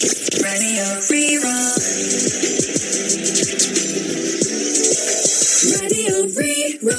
Radio Rí-Rá. Radio Rí-Rá.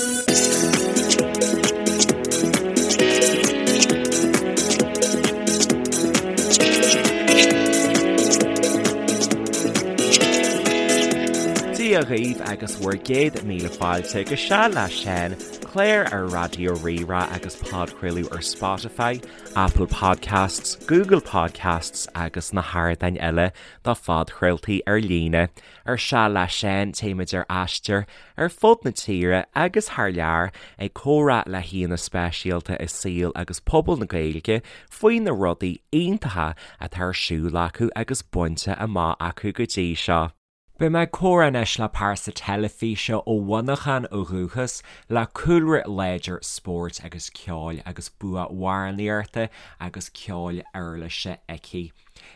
Dia dhaoibh agus bhur gcéad míle fáilte go Seal le Seán, clár ar Raidió Rí-Rá agus podchraoladh ar Spotify, Apple Podcasts, Google Podcasts agus na hardáin eile do phodchraoltaí ar líne. Ar Seal le Seán téimid ar aistear ar fud na tíre agus thar lear ag comhrá le haíonna speisialta i saol agus pobal na Gaeilge faoi na rudaí iontacha atá ar siúl acu agus bainte amach acu go dtí seo. Beidh mé ag comhrá anois le pearsa teilifíse ó Mhuineachán ó dhúchas, le cúlra láidir spóirt agus ceoil agus bua amhránaíochta agus ceoil uirlise aici.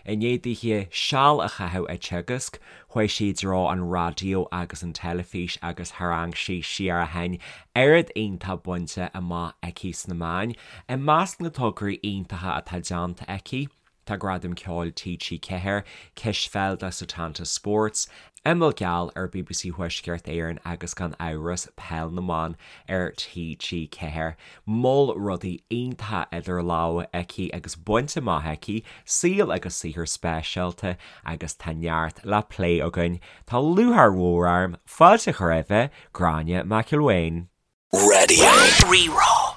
I ndiaidh dithe seal a chaitheamh ag teagasc, chuaigh sí i dtreo an raidió agus an teilifís agus tharraing sí siar ó shin oiread iontach bainte amach aici sna meáin. I measc na tograí iontacha atá déanta aici, Tá Gradam Ceoil TG4, Cispheil do Setanta Sports, Imeall Geal ar bbc Thuaisceart Éireann agus gan amhras Peil na mBan ar TG4. Moll rudaí iontacha idir lámha aici agus bainte amach aici, saol agus saothar speisialta agus tá neart le plé againn. Tá lúcháir mhór orm fáilte a chur roimhe, Gráinne McElwain. Radio Rí-Rá.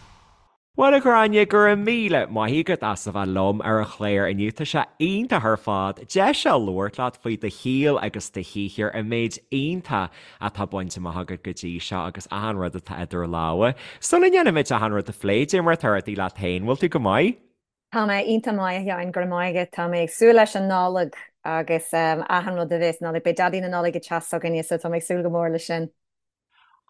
Bhuel a Ghráinne, go raibh míle maith agat as a bheith liom ar an chlár inniu. Tá sé iontach ar fad deis a labhairt leat faoi do shaol agus do shaothar, an méid iontach atá bainte amach agat go dtí seo agus achan rud atá idir lámha. Sula ndéanaimid achan rud a phlé, cad é mar atá rudaí leat féin, bhfuil tú go maith? Tá mé iontach maith, a Sheáin, go raibh maith agat. Tá mé ag súil leis an Nollaig agus achan rud a bheas Nollaig. Beidh Daidí na Nollag ag teacht s'againne so tá mé ag súil go mór leis sin.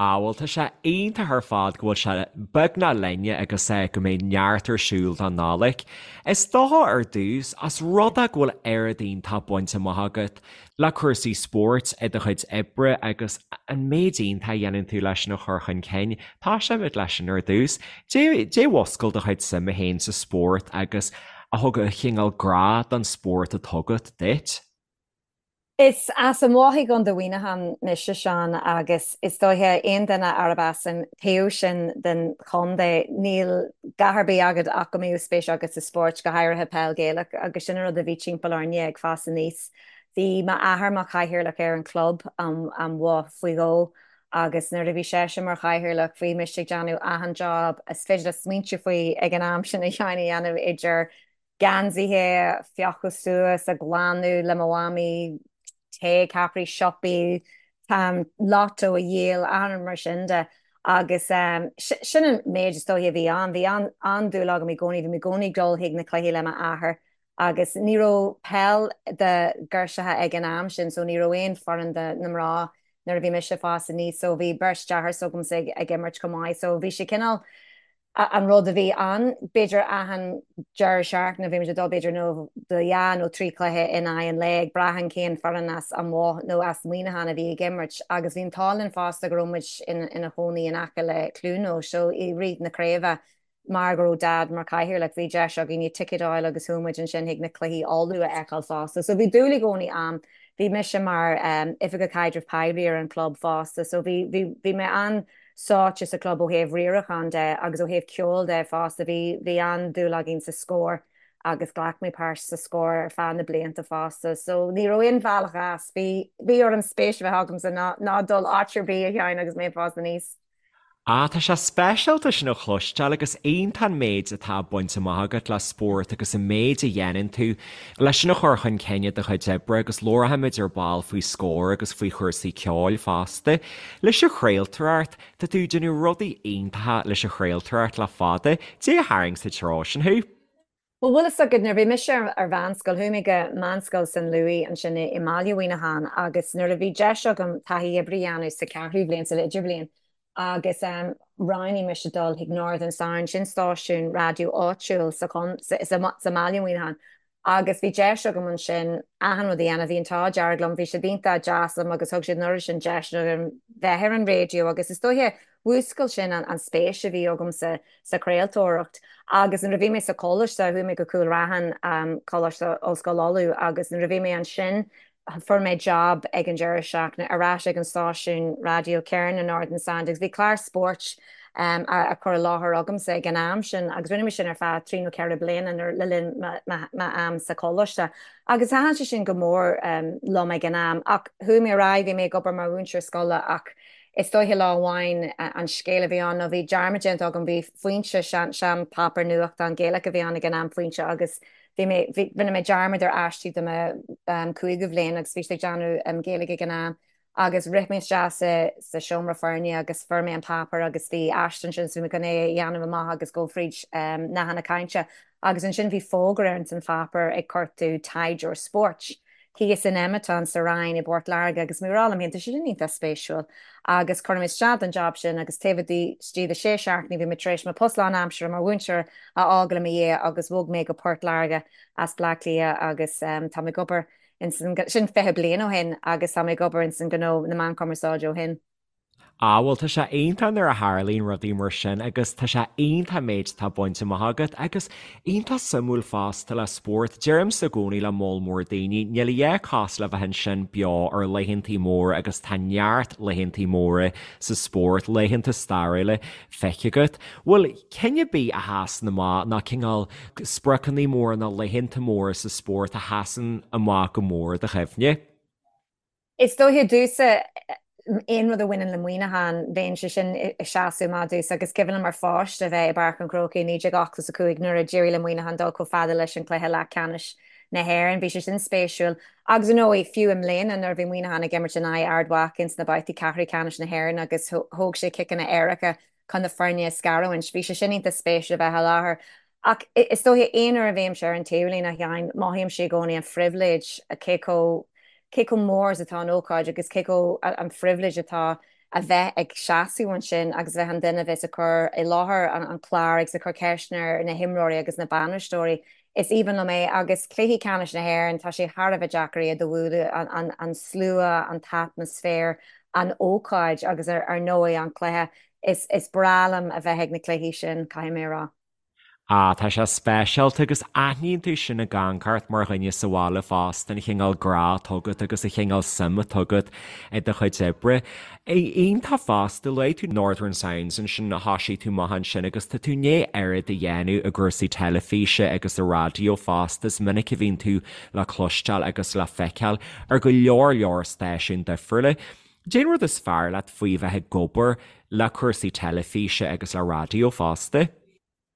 Ah bhuel tá sé iontach ar fad go bhfuil sé beagnach linne agus go mbeidh neart ar siúl don Nollaig. Is dócha ar dtús, os rud é go bhfuil oiread iontach bainte amach agat le cúrsaí spóirt i do chuid oibre agus an méid iontach a dhéanann tú leis sin a chur chun cinn, tosóimid leis sin ar dtús. Cad é a mhúscail do chuid suime féin sa spórt agus a thug an chineál grá don spórt atá agat duit? Is as an Bhoth i gContae Mhuineacháin mise, Seán, agus is dóiche aon duine arb as an taobh sin den chontae, níl dhath ar bith agat ach go mbeadh spéis agat sa spórt, go háirithe peil Ghaelach, agus sin an rud a bhí timpeall orainne ag fás aníos. Bhí m'athair mar chathaoirleach ar an chlub, an Bhoth, faoi dhó, agus nuair a bhí seisean mar chathaoirleach, bhí mise ag déanamh achan job is féidir leat smaointiú faoi ag an am sin a Sheáin a dhéanamh idir geansaithe a phiocadh suas, a ghlanadh le mo mhamaí, tae, ceapairí, siopaí, lotto a dhíol, achan rud mar sin de. Agus sin an méid is dóiche a bhí ann. Bhí an-dúil agam i gcónaí, bhí mé i gcónaí ag dul chuig na cluichí le m'athair agus ní raibh peil do ghirseacha ag an am sin so ní raibh aon foireann do na mná nuair a bhí mise ag fás aníos so bhí beirt deartháir s'agamsa ag imirt chomh maith so bhí sé cineál an rud a bhí ann. B'fhéidir achan deireadh seachtaine bhí muid ag dul b'fhéidir nó do dhá nó trí chluiche in aghaidh an lae ag brath an cén foireann as an Bhoth nó as Muineachán a bhí ag imirt agus bhí an t-ádh linn fosta go raibh muid ina chónaí in aice le Cluain Eois so i rith na craoibhe mar go raibh Dad mar chathaoirleach bhí deis againn ticéid a fháil agus chuaigh muid ansin chuig na cluichí Uladh a fheiceáil fosta. So bhí dúil i gcónaí a'm. Bhí mise mar oifigeach caidrimh poiblí ar an chlub fosta so bhí bhí bhí mé an sáite sa chlub ó thaobh riaracháin de agus ó thaobh ceoil de fosta. Bhí, bhí an-dúil againn sa Scór agus ghlac mé páirt sa Scór ar feadh na blianta fosta. So ní raibh aon bhealach as. Bhí, bhí orm spéis a bheith agamsa ná, ná dul áit ar bith a Sheáin agus mé ag fás aníos. Ah, tá sé speisialta sin a chloisteáil agus iontach an méid atá bainte amach agat le spórt agus an méid a dhéanann tú leis sin a chur chun cinn i do chuid oibre agus labharfaimid ar ball faoi Scór agus faoi chúrsaí ceoil fosta. Leis an chraoltóireacht, tá tú ag déanamh rudaí iontacha leis an chraoltóireacht le fada, cad é a tharraing sa treo sin thú? Bhuel, bhfuil fhios agat, nuair a bhí mise ar mheánscoil, chuaigh mé go Meánscoil San Louis ansin i mbaile Mhuineacháin agus nuair a bhí deis agam taithí oibre a dhéanamh sa cheathrú bhliain, san idirbhliain, agus roghnaigh mise dul chuig Northern Sound, sin stáisiún raidió áitiúil sa mbaile Mhuineacháin, agus bhí deis agam ansin achan rud a dhéanamh, bhí an t-ádh dearg liom, bhí siad iontach deas liom agus thug siad an oiread sin deiseanna dom bheith ar an raidió agus is dóiche. mhúscail sin an spéis a bhí agamsa sa chraoltóireacht. Agus nuair a bhí mé sa choláiste, chuaigh mé go Cúil Raithin, Coláiste Ollscoil Uladh, agus nuair a bhí mé ansin fuair mé job ag an deireadh seachtaine ar ais ag an stáisiún raidió céanna, Northern Sound, agus bhí clár spóirt á chur i láthair agamsa ag an am sin agus rinne mé sin ar feadh trí nó ceithre bliana nuair le linn m'am sa choláiste. Agus thaitin sé sin go mór liom ag an am. Ach chuaigh mé ar aghaidh, bhí mé ag obair mar mhúinteoir scoile ach is dóiche lá amháin an scéal a bhí ann nó bhí dearmad déanta agam, bhí Foinse, sean páipéar nuachtán Gaelach a bhí ann ag an am, Foinse, agus bhí mé, bhí, rinne mé dearmad ar aistí do mo cúigiú bhliain agus bhí siad ag déanamh Gaeilge ag an am agus rith mé isteach sa, sa seomra foirne agus fuair mé an páipéar agus bhí aiste ansin so bhí mé chun é a dhéanamh amach agus dul fríd nathanna cainte agus ansin bhí fógra ar an pháipéar ag cuartú taighdeoir spóirt. thíos in Ematon sa Rinn i bPort Láirge agus mé ag rá liom féin, tá sé sin iontach spéisiúil agus chuir mé isteach don job sin agus taobh istigh de sé seachtainí bhí mé tar éis mo post lánaimseartha mar mhúinteoir a fhágáil i mo dhiaidh agus bhog mé go Port Láirge as Bleá Cliath agus tá mé ag obair ins an, sin 20 bliain ó shin agus tá mé ag obair ins an gnó na meán cumarsáide ó shin. Ah bhuel tá sé iontach nuair a tharlaíonn rudaí mar sin agus tá sé iontach méid atá bainte amach agat agus iontach suimiúil fosta le spórt. Deirimse i gcónaí le moll mór daoine, níl a dhath cosúil le bheith ansin beo ar laethantaí móra agus tá neart laethantaí móra sa spórt, laethanta stairiúla feicthe agat. Bhfuil cinn ar bith a sheasann amach nó cineál spriocanna móra nó laethanta móra sa spórt a sheasann amach go mór i do chuimhne? Is dóiche domhsa, aon rud a bhaineann le Muineachán, bheadh sé sin ag seasamh amach domhsa agus cuimhin liom mar pháiste a bheith i bPáirc an Chrócaigh i 1985 nuair a d'éirigh le Muineachán dul chomh fada leis an cluiche leathcheannais na hÉireann. Bhí sé sin spéisiúil. Agus ar ndóigh, fiú i mbliana nuair a bhí Muineachán ag imirt in aghaidh Ard Mhacha ins na babhtaí ceathrú ceannais na hÉireann agus thóg sé ciceanna éirice chun na foirne a scarúint. Bhí sé sin iontach spéisiúil a bheith i láthair. Ach is dóiche, aon uair a bhímse ar an taobhlíne, a Sheáin, mothaímse i gcónaí an phribhléid, cé chomh, cé chomh mór is atá an ócáid agus cé chomh, an phribhléid atá a bheith ag seasamh ansin agus a bheith an duine a bheas ag cur i láthair an clár agus ag cur ceisteanna ar na himreoirí agus na bainisteoirí. Is aoibhinn liom é agus cluichí ceannais na hÉireann, tá sé thar a bheith deacair iad a bhualadh, an, an slua, an t-atmaisféar, an ócáid agus ar ndóigh an cluiche. Is, is breá liom a bheith ag na cluichí sin, caithfidh mé a rá. Ah, tá sé speisialta agus aithníonn tú sin ag amharc ort mar dhuine sa bhaile fosta, an chineál grá atá agat agus an chineál suim atá agat i do chuid oibre. Iontach fosta, luaigh tú Northern Sounds ansin, thosaigh tú amach ansin agus tá tú i ndiaidh oiread a dhéanamh i gcúrsaí teilifíse agus sa raidió fosta, is minic a bhíonn tú le cloisteáil agus le feiceáil ar go leor leor stáisiún difriúla. Cén rud is fearr leat faoi bheith ag obair le cúrsaí teilifíse agus le raidió fosta?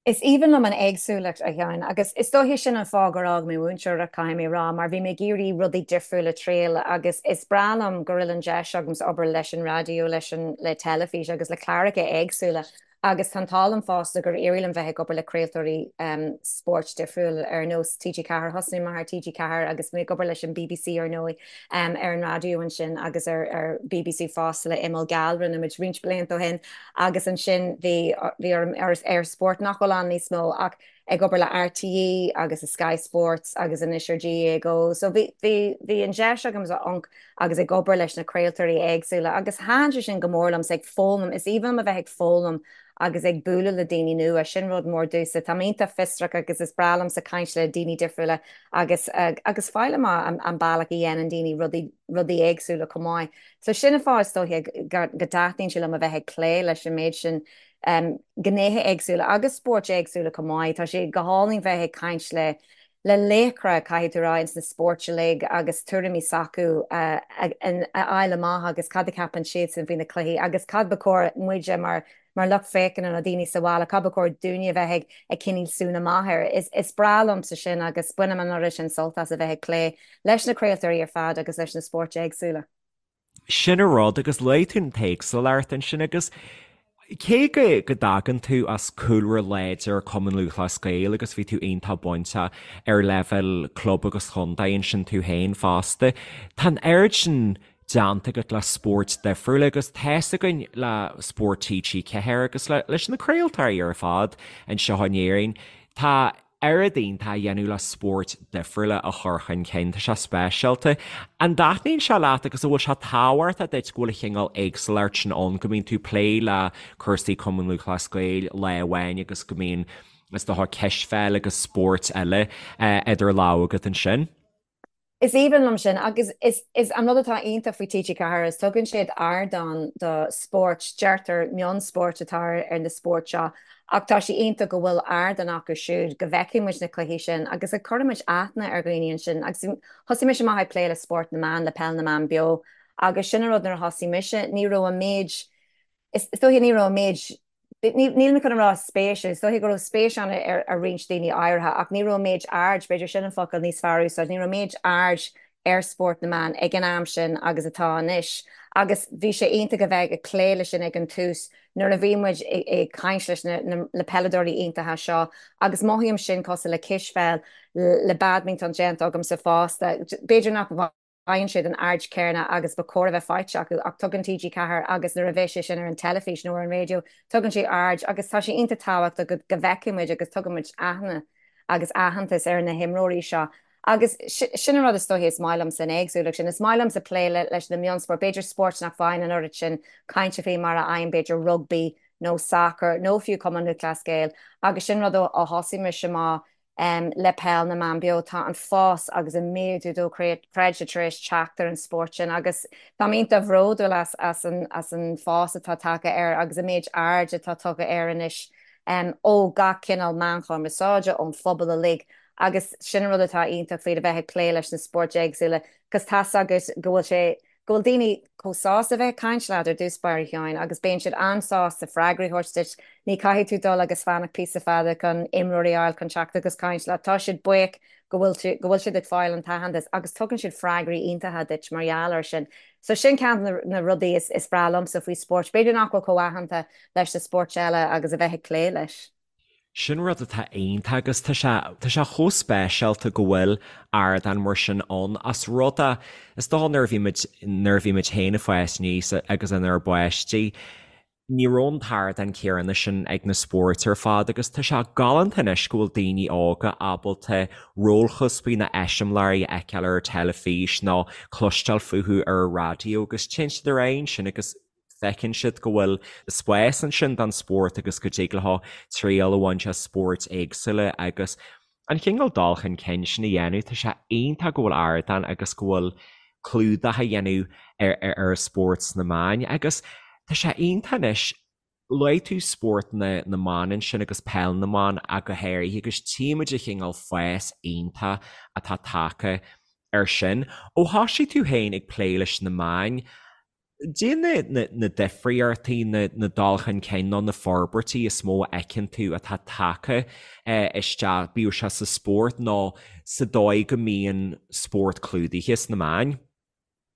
Is aoibhinn liom an éagsúlacht, a Sheáin, agus is dóiche sin an fáth gur fhág mé múinteoireacht, caithfidh mé a rá, mar bhí mé ag iarraidh rudaí difriúla a triail agus is breá liom go bhfuil an deis agamsa obair leis an raidió, leis an, le teilifís agus le cláracha éagsúla. Agus tá an t-ádh liom fosta gur éirigh liom bheith ag obair le craoltóirí spóirt difriúil ar nós TG4. Thosnaigh mé ar TG4 agus mé ag obair leis an bbc ar ndóigh ar an raidió ansin agus ar ar bbc fosta le Imeall Geal, rinne muid roinnt blianta ó shin agus ansin bhí bhí orm ar eir Sport nach bhfuil ann níos mó ach ag obair le RTÉ agus Sky Sports agus anois ar GAA Go. So bhí bhí bhí an deis agam amharc agus ag obair leis na craoltóirí éagsúla agus thaitin sé sin go mór liomsa ag foghlaim, is aoibhinn liom a bheith ag foghlaim agus ag bualadh le daoine nua, sin rud mór domhsa. Tá mé iontach fiosrach agus is breá liomsa caint le daoine difriúla agus agus fáil amach an an bealach a dhéanann daoine rudaí rudaí éagsúla chomh maith. So sin an fáth is dóiche go go dtaitníonn sé liom a bheith ag plé leis an méid sin gnéithe éagsúla agus spóirt éagsúla chomh maith. Tá sé go hálainn bheith ag caint le le laochra, caithfidh tú rá, ins na spóirt uilig agus tuairimí s'acu a fháil amach agus cad a cheapann siadsan faoi na cluichí agus cad ba chóir muide mar mar lucht féachana nó daoine sa bhaile, cad ba chóir dúinne a bheith ag ag coinneáil súil amach air. Is is breá liomsa sin agus bainim an oiread sin sult as a bheith ag plé leis na craoltóirí ar fad agus leis na spóirt éagsúla. Sin an rud, agus luaigh tú an t-éagsúlacht ansin agus cé go go dtagann tú as cúlra láidir Cumann Lúthchleas Gael agus bhí tú iontach bainteach ar leibhéal club agus chontae ansin tú féin fosta, tá an oiread sin déanta agat le spóirt difriúla agus tá's againn le Spórt TG4 agus leis na craoltóirí ar fad anseo in Éirinn, tá. Oiread iontach a dhéanamh le spóirt difriúla a chur chun cinn, tá sé speisialta. An dtaitníonn sé leat agus an bhfuil sé tábhachtach duit go bhfuil an chineál éagsúlacht sin ann, go mbíonn tú ag plé le cúrsaí Cumann Lúthchleas Gael lá amháin agus go mbíonn, is dócha, cispheil agus spóirt eile idir lámha agat ansin? Is aoibhinn liom sin agus is an rud atá iontach faoi TG4 is tugann siad ardán do spóirt, deirtear mionspóirt atá ar na spóirt seo ach tá sé iontach go bhfuil ardán acu siúd go bhfeicfidh muid na cluichí sin agus go gcuireann muid aithne ar dhaoine ansin agus thosaigh mise amach ag plé le spórt na mban, le peil na mban beo agus sin an rud nuair a thosaigh mise ní raibh an méid is dóiche ní raibh an méid Níl mé chun a rá spéis, is dóiche go raibh spéis ann ar roinnt daoine áirithe ach ní raibh an méid aird, b'fhéidir sin an focal níos fearr a úsáid, ní raibh an méid aird ar spórt na mban ag an am sin agus atá anois agus bhí sé iontach a bheith ag plé leis sin ag an tús nuair a bhí muid ag caint leis na peileadóirí iontacha seo agus mothaím sin cosúil le cispheil, le badminton déanta agamsa fosta, b'fhéidir nach bhfaigheann siad an aird chéanna agus ba chóir a bheith faighte acu ach tugann TG4 agus nuair a bheidh sé sin ar an teilifís nó ar an raidió tugann sé aird agus tá sé iontach tábhachtach go go bhfeicfidh muid agus tugann muid aithne agus aitheantas ar na himreoirí seo agus sin an rud is dóiche is maith liomsa an éagsúlacht sin. Is maith liomsa plé leis na mionspóirt, b'fhéidir spóirt nach bhfaigheann an oiread sin cainte faoi mar a fhaigheann b'fhéidir rugbaí nó sacar nó fiú Cumann Lúthchleas Gael agus sin rud ó thosaigh mise amach le Peil na mBan Beo, tá an fás agus an méadú dochreidte tar éis teacht ar an spórt sin agus táim iontach bhródúil as as an as an fás atá tagtha air agus an méid aird atá tugtha air anois ó gach cineál meán cumarsáide, ón phobal uilig agus sin an rud atá iontach faoi le bheith ag plé leis na spóirt éagsúla 'cause tá's agat go bhfuil sé go bhfuil daoine chomh sásta a bheith ag caint leat ar dtús báire a Sheáin agus bíonn siad an-sásta freagraí a thabhairt duit. Ní caithfidh tú dul agus fanacht píosa fada chun imreoirí a fháil chun teacht agus caint leat. Tá siad buíoch go bhfuil tú, go bhfuil siad ag fáil an t-aitheantas agus tugann siad freagraí iontacha duit mar gheall air sin. So sin ceann de na rudaí is breá liomsa faoi spóirt. B'fhéidir nach bhfuil chomh aitheanta leis na spóirt eile agus a bheith ag plé leis. Sin rud atá iontach agus tá sé, tá sé chomh speisialta go bhfuil ardán mar sin ann as rud é, is dócha nuair a bhí muid, nuair a bhí muid féin ag fás aníos agus inár bpáistí, ní raibh an t-ardán céanna sin ag na spóirt ar fad agus tá sé galánta anois go bhfuil daoine óga ábalta rólchuspaí nó eiseamláirí a fheiceáil ar an teilifís nó cloisteáil fúthu ar an raidió agus téann siad ar aghaidh ansin agus feiceann siad go bhfuil spás ansin don spórt agus go dtig leo triail a bhaint as spóirt éagsúla agus an chineál dul chun cinn sin a dhéanamh. Tá sé iontach go bhfuil ardán agus go bhfuil clúdach á dhéanamh ar ar an spórt sna meáin agus tá sé iontach anois luaigh tú spórt na na mban ansin agus peil na mban ach go háirithe agus tchímid an chineál fás iontach atá tagtha ar sin. Ó thosaigh tú féin ag plé leis na meáin, Cad é na difríochtaí, na dul chun cinn nó na forbairtí is mó a fheiceann tú atá tagtha isteach, bíodh sé sa spórt nó sa dóigh go mbíonn spórt clúdaithe sna meáin?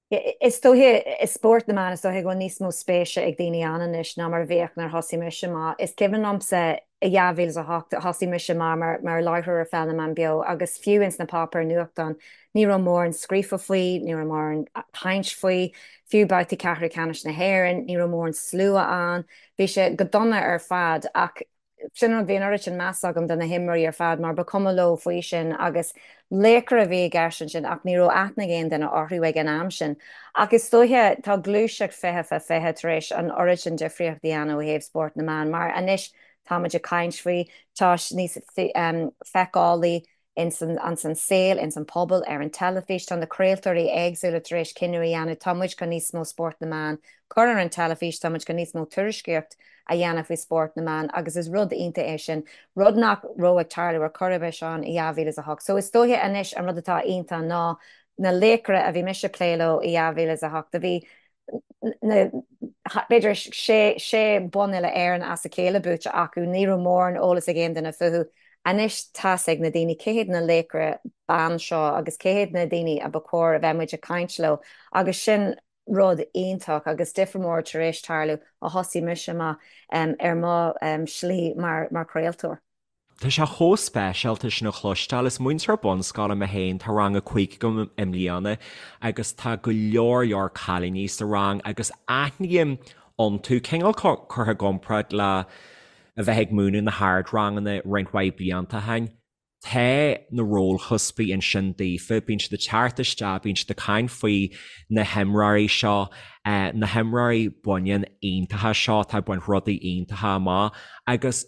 Is dóiche, i spórt na mban, is dóiche go bhfuil níos mó spéise ag daoine ann anois ná mar a bhíodh nuair a thosaigh mise amach. Is cuimhin liomsa i 2008, thosaigh mise amach mar mar láithreoir ar Pheil na mBan Beo agus fiú ins na páipéir nuachtáin ní raibh mórán scríofa faoi, ní raibh mórán caint faoi, fiú babhtaí ceathrú ceannais na hÉireann, ní raibh mórán slua ann, bhí sé go dona ar fad ach sin an rud, bhí an oiread sin meas agam do na himreoirí ar fad mar ba chuma leo faoi sin agus laochra a bhí i gceist ansin ach ní raibh aithne ag aon duine orthu ag an am sin. Ach is dóiche tá gluaiseacht 20 fá 20 tar éis an oiread sin difríocht a dhéanamh ó thaobh spórt na mban mar anois táimid ag caint faoi, tá sé níos feiceálaí ins an saol, ins an pobal, ar an teilifís. Tá na craoltóirí éagsúla tar éis cinneadh a dhéanamh, tá muid chun níos mó spórt na mban cur ar an teilifís, tá muid chun níos mó tuairiscíocht a dhéanamh faoi spórt na mban agus is rud iontach é sin, rud nach raibh ag tarlú ar chor ar bith, Seán, i 2008. So is dóiche anois an rud atá iontach ná na laochra a bhí mise ag plé leo i 2008, a bhí na, b'fhéidir sé, sé bonn uile-Éireann as a chéile buaite acu, ní raibh mórán eolas ag aon duine fúthu. Anois tá's ag na daoine cé hiad na laochra ban seo agus cé hiad na daoine a ba chóir a bheith muid ag caint leo agus sin rud iontach agus difear mór tar éis tarlú ó thosaigh mise amach ar mo shlí mar chraoltóir. Tá sé chomh speisialta sin a chloisteáil. Is múinteoir bunscoile mé féin, tá rang 5 agam i mbliana agus tá go leor leor cailíní sa rang agus aithním iontu, cineál curtha i gcomparáid le a bheith ag múineadh na hardranganna roinnt mhaith blianta ó shin. Tá na rólchuspaí ansin daofa, bíonn siad ag teacht isteach, bíonn siad ag caint faoi na himreoirí seo, na himreoirí baineann iontacha seo atá ag baint rudaí iontacha amach agus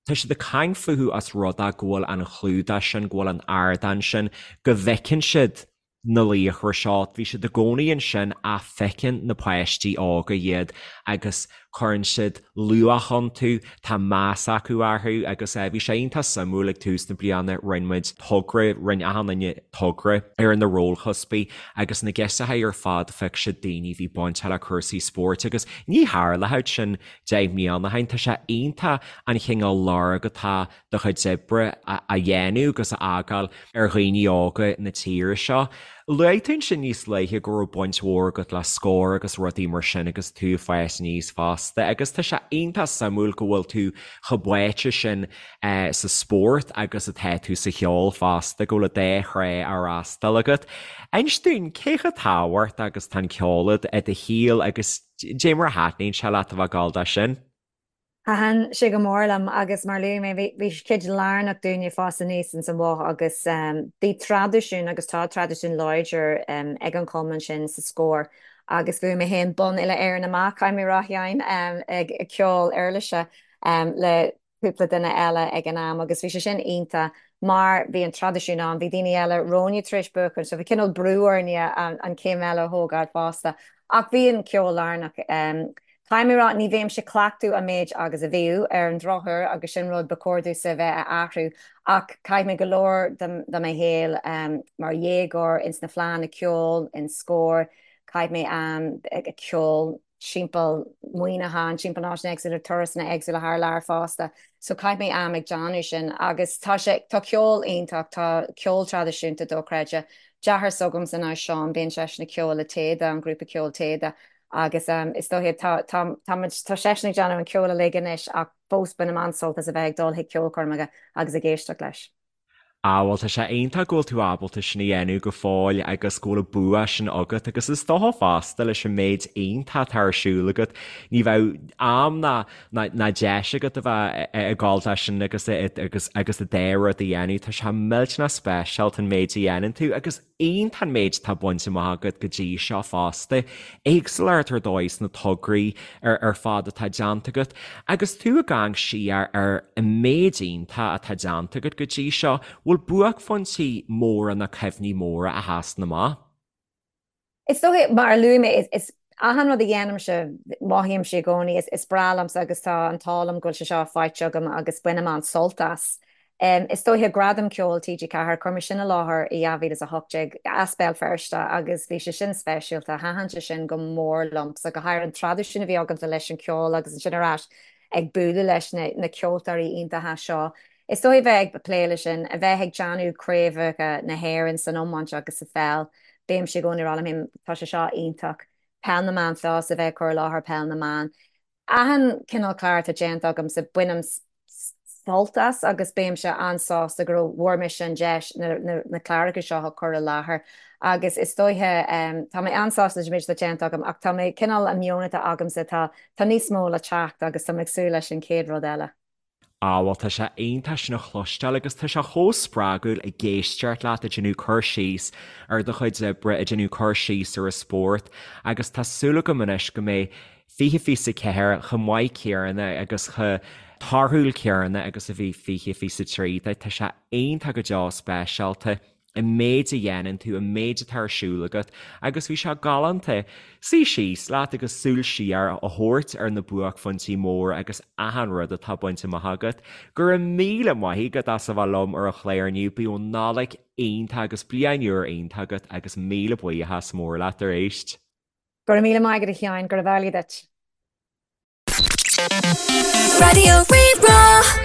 tá siad ag caint fúthu os rud é go bhfuil an clúdach sin, go bhfuil an ardán sin, go bhfeiceann siad na laochra seo, bhí siad i gcónaí ansin ach feiceann na páistí óga iad agus cuireann siad luach iontu, tá meas acu orthu agus bhí sé iontach suimiúil ag tús na bliana, rinne muid togra, rinne achan duine togra ar na rólchuspaí agus na girseachaí ar fad phioc siad daoine a bhí bainteach le cúrsaí spóirt agus ní tharlódh sin 10 mbliana ó shin, tá sé iontach an chineál lorg atá do chuid oibre a dhéanamh agus a fhágáil ar dhaoine óga na tíre seo. Luaigh tú ansin níos luaithe go raibh baint mhór agat le Scór agus rudaí mar sin agus tú ag fás aníos fosta agus tá sé iontach suimiúil go bhfuil tú chomh báite sin sa spórt agus atá tú sa cheol fosta, go bhfuil an dá thrá á fhreastal agat. Inis dúinn, cé chomh tábhachtach agus atá an ceol i do shaol agus dé mar a thaitníonn sé leat a bheith ag gabháil dó sin? Thaitin sé go mór liom agus mar a luaigh mé bhí sé cuid lárnach dúinne ag fás aníos ins an Bhoth agus bhí traidisiún agus tá traidisiún láidir ag an chumann sin sa Scór agus bhuaigh mé féin bonn uile Éireann amach, caithfidh mé a rá a Sheáin, ag ceol uirlise le cúpla duine eile ag an am agus bhí sé sin iontach mar bhí an traidisiún ann, bhí daoine eile romhainne tar éis buachan so bhí cineál brú orainne an chéim eile a thógáil fosta ach bhí an ceol lárnach. Caithfidh mé a rá, ní bhímse ag cleachtadh an méid agus a bhíodh, ar an drochuair, agus sin rud ba chóir domhsa a bheith a athrú, ach chaith mé go leor de mo shaol mar dhéagóir ins na fleánna ceoil, in Scór, chaith mé am ag ceol timpeall Muineachán, timpeall na háiteanna éagsúla, turasanna éagsúla thar lear fosta, so chaith mé am ag déanamh sin agus tá sé, tá ceol iontach, tá ceol traidisiúnta dochreidte, deartháir s'agamsa ná Seán, bíonn seisean ag ceol le Téada, an grúpa ceoil Téada, Agus is dóiche, tá, tá, tá muid, tá seisean ag déanamh an ceol uilig anois ach fós bainim an-sult as a bheith ag dul chuig ceolchoirmeacha agus ag éisteacht leis. Ah bhuel tá sé iontach go bhfuil tú ábalta sin a dhéanamh go fóill agus go bhfuil an bua sin agat agus is dócha fosta leis an méid iontach atá ar siúl agat ní bheadh am ná ná ná deis agat a bheith ag gabháil dó sin agus agus agus an dá rud a dhéanamh. Tá sé millteanach speisialta an méid a dhéanann tú agus Iontach an méid atá bainte amach agat go dtí seo fosta. Éagsúlacht ar dóigh sna tograí ar fad atá déanta agat. Agus tú ag amharc siar ar an méid iontach atá déanta agat go dtí seo, bhfuil buaicphointí móra nó cuimhní móra a sheasann amach? Is dóiche, mar a luaigh mé, is achan rud a dhéanaimse, mothaímse i gcónaí, is breá liomsa agus tá an t-ádh liom go bhfuil sé seo faighte agam agus bainim an-sult as. Is dóiche Gradam Ceoil TG4, chuir mé sin i láthair i 2018 as Béal Feirste agus bhí sé sin speisialta, thaitin sé sin go mór liomsa, go háirithe an traidisiún a bhí agamsa leis an cheol agus ansin ar ais ag bualadh leis na ceoltóirí iontacha seo. Is dóiche bheith ag plé leis sin, a bheith ag déanamh craobhacha na hÉireann san iomáint agus sa pheil, bímse i gcónaí ag rá liom féin, tá sé seo iontach. Peil na mBan Plus, a bheith ag cur i láthair Peil na mBan. Achan cineál clár atá déanta agamsa, bainim sult as agus bímse an-sásta go raibh, bhfuair mise an deis na cláracha seo a chur i láthair agus is dóiche, tá mé an-sásta leis an méid atá déanta agam ach tá mé cineál, an meon atá agamsa, tá níos mó le teacht agus tá mé ag súil leis an chéad rud eile. Á, bhuel, tá sé iontach sin a chloisteáil agus tá sé chomh spreagúil ag éisteacht leat ag déanamh cur síos ar do chuid oibre, ag déanamh cur síos ar an spórt agus tá súil agam anois go mbeidh 2024 chomh maith céanna agus chomh torthúil céanna agus a bhí 2023. Tá sé iontach go deo speisialta. an méid a dhéanann tú, an méid atá ar siúl agat agus bhí sé galánta suí síos leat agus súil siar a thabhairt ar na buaicphointí móra agus achan rud atá bainte amach agat. Go raibh míle maith agat as a bheith liom ar an chlár inniu, bíodh Nollaig iontach agus bliain úr iontach agat agus míle buíochas mór leat arís. Go raibh míle maith agat a Sheáin, gurab amhlaidh duit. Raidió Rí-Rá.